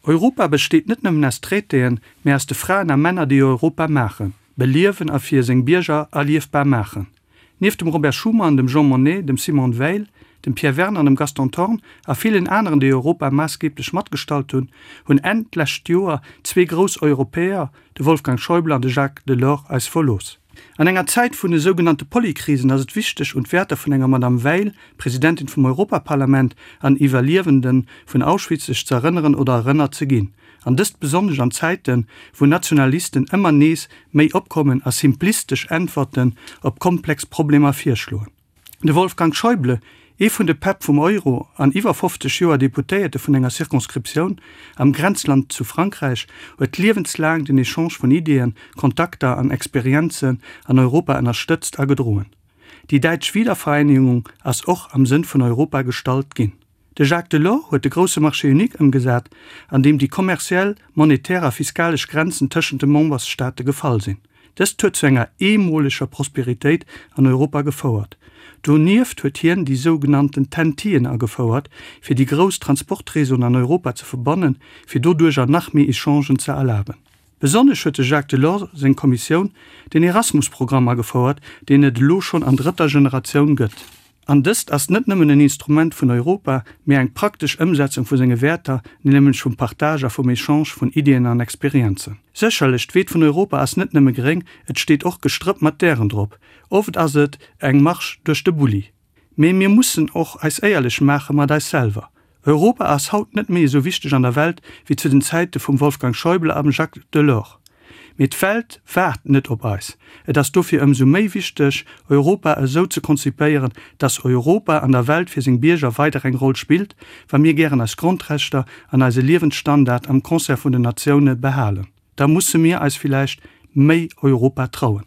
Europa besteet net nëmmen aus Traitéen, mä aus de Fraen a Männer, déi Europa maachen, beliewen a fir seng Bierger erliefbar maachen. Nieft dem Robert Schuman, dem Jean Monnet, dem Simone Veil, dem Pierre Werner, dem Gaston Thorn a villen aneren, déi Europa maassgeeblech matgestalt hunn, hunn Enn d'lescht Joer zwee grouss Europäer, de Wolfgang Schäuble an de Jacques Delors, eis verlooss. An enger Zäit vun de sougenannte Polykrisen ass et wichteg, un d'Wäerter vun enger Madame Veil, Presidentin vum Europaparlament an Iwwerliewende vun Auschwitz, sech ze erënneren oder erënnert ze ginn. An dëst besonnesch an Zäiten, wou Nationalisten ëmmer nees méi opkommen a simplistesch Äntwerten op komplex Problemer virschloen. De Wolfgang Schäuble, ee vun de Päpp vum Euro an iwwer 50 Joer Deputéierte vun enger Circonscriptioun am Grenzland zu Frankräich, huet liewenslaang den Echange vun Ideeën, Kontakter an Experienzen an Europa ënnerstëtzt a gedroen. Déi däitsch Wiedervereinigung ass och am Sënn vun Europa gestallt ginn. De Jacques Delors huet de grousse Marché unique ëmgesat, an deem déi kommerziell, monetär a fiskalesch Grenzen tëschent de Membersstaate gefall sinn. Dëst huet zu enger eemoleger Prosperitéit an Europa gefouert. Donieft huet hien déi sougenannten TEN-Tien agefouert, fir déi grouss Transportréseauen an Europa ze verbannen, fir doduercher nach méi Echangen ze erlaben. Besonnesch huet de Jacques Delors seng Kommissioun den Erasmus-Programm agefouert, deen et elo schonn an drëtter Generatioun gëtt. An dëst ass net nëmmen en Instrument vun Europa, mee eng praktesch Ëmsetzung vu senge Wäerter, nämlech vum Partage a vum Echange vun Iddien an Experienzen. Sécherlech, d'Weed vun Europa ass net nëmme gréng, et steet och Gestrëpp mat Dären drop. Oft ass et eng Marsch duerch de Bulli. Mee mir mussen och eis éierlech maache mat eis selwer. Europa ass haut net méi esou wichteg an der Welt wéi zu den Zäite vum Wolfgang Schäuble am Jacques Delors. Mee d'Welt waart net op eis. Et ass dofir ëmsou méi wichteg, Europa esou ze konzipéieren, dass Europa an der Welt fir seng Bierger weider eng Roll spillt, wa mir gären eis Grondrechter an eise Liewensstandard am Concert vun den Natioune behalen. Da musse mir eis villäicht méi Europa trauen.